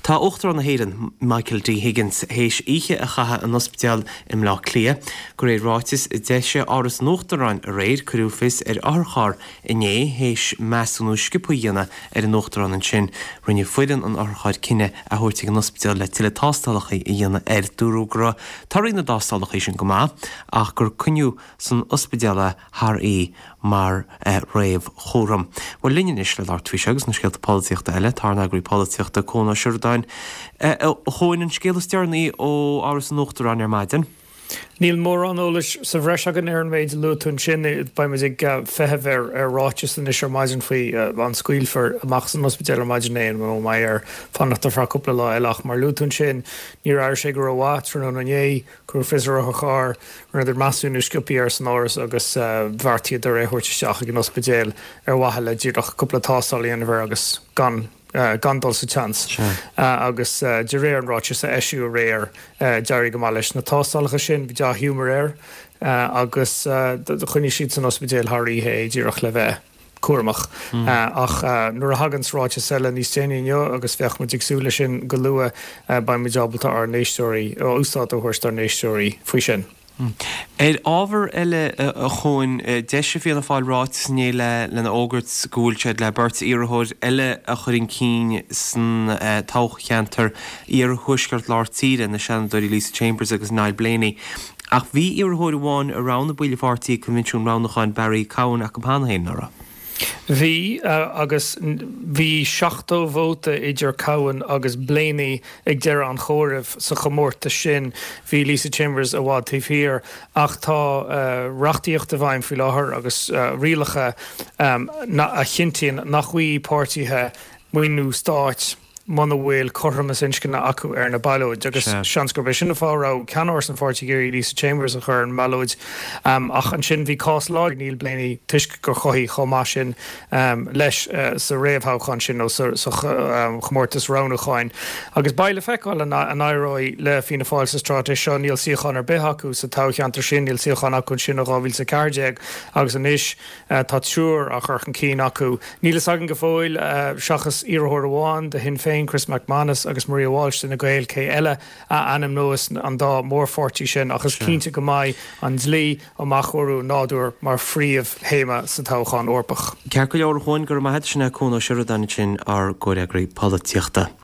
Tá Uachtarán na hÉireann, Michael D Higgins, théis oíche a chaitheamh in ospidéal i mBleá Cliath. De réir ráitis a d'eisigh Áras an Uachtaráin aréir, cuireadh fios ar otharcharr inné théis measúnú sciobtha a dhéanamh ar an Uachtarán ansin. Rinne foireann an otharchairr cinneadh é a thabhairt ag an ospidéal le tuilleadh tástálacha a dhéanamh air. Dúradh go raibh torthaí na dtástálacha sin go maith ach gur coinníodh san ospidéal é thar oíche mar réamhchúram. Bhuel, linn anois le labhairt faoi seo agus na scéalta polaitíochta eile, tá ár n-eagraí polaitíochta, Cuan Ó Seireadáin. A Chuain, an scéal is deireanaí ó Áras an Uachtaráin ar maidin. Níl mórán eolais sa bhreis againn ar an méid a luaigh tú ansin. Beidh muid ag feitheamh ar ráiteas anois ar maidin faoi an scaoilfear amach as an ospidéal ar maidin é nó an mbeidh air fanacht ar feadh cúpla lá eile. Ach mar a luaigh tú ansin, níor airigh sé go rómhaith tráthnóna inné. Cuireadh fios ar otharcharr, rinneadar measúnú sciobtha air san áras agus bheartaíodar é a thabhairt isteach ag an ospidéal ar mhaithe le díreach cúpla tástáil a dhéanamh air agus gan gan dul sa tseans. Agus de réir an ráitis a eisíodh aréir, d'éirigh go maith leis na tástálacha sin, bhí dea-ghiúmar air agus choinnigh siad san ospidéal thar oíche é díreach le bheith cúramach. Ach nuair a thaganns ráiteas eile níos déanaí inniu, agus bheadh muid ag súil leis sin go luath, beidh muid ábalta ár n-éisteoirí, úsáid a thabhairt dár n-éisteoirí faoi sin. Ar ábhar eile, a Chuain, d'eisigh Fianna Fáil ráiteas inné lena fhógairt go bhfuil siad le beirt iarrthóir eile a chur chun cinn san toghcheantar iarthuaisceart lár tíre, na Seanadóirí Lisa Chambers agus Niall Blaney. Ach bhí iarrthóir amháin a roghnaigh baill an pháirtí ag coinbhinsiún roghnúcháin, Barry Cowen, acu cheana féin, nach raibh? Bhí, agus bhí 70 vóta idir Cowen agus Blaney ag deireadh an chomhairimh sa chomórtas sin. Bhí Lisa Chambers i bhfad taobh thiar. Ach tá reachtaíocht i bhfeidhm faoi láthair agus rialacha a chinntíonn nach bhfaighidh páirtithe maoiniú stáit. muna bhfuil cothromas inscne acu ar na ballóid agus seans gurb é sin an fáth a raibh ceannáras an pháirtí ag iarraidh Lisa Chambers a chur ar an mballóid. Ach ansin bhí cás láidir ag Niall Blaney toisc gur chothaigh chomh maith sin leis sa réamhthoghchán sin nó sa chomórtas roghnúcháin. Agus beidh le feiceáil an éireoidh le Fianna Fáil sa straitéis seo. Níl suíochán ar bith acu sa toghcheantar sin, níl suíochán acu ansin ó 2014 agus anois Tá triúr á chur chun cinn acu. Níl fhios againn go fóill, seachas iarrthóir amháin do Shinn Féin, Chris MacManus, agus Maria Walsh d'Fhine Gael, cé eile a ainmneos an dá mhórpháirtí sin ach is cinnte go mbeidh an dlí um athchóiriú an nádúir mar phríomhthéama sa toghchán Eorpach. Ceart go leor, a Chuain, go raibh maith agat. Sin é Cuan Ó Seireadáin ansin, ár gcomhfhreagraí polaitíochta.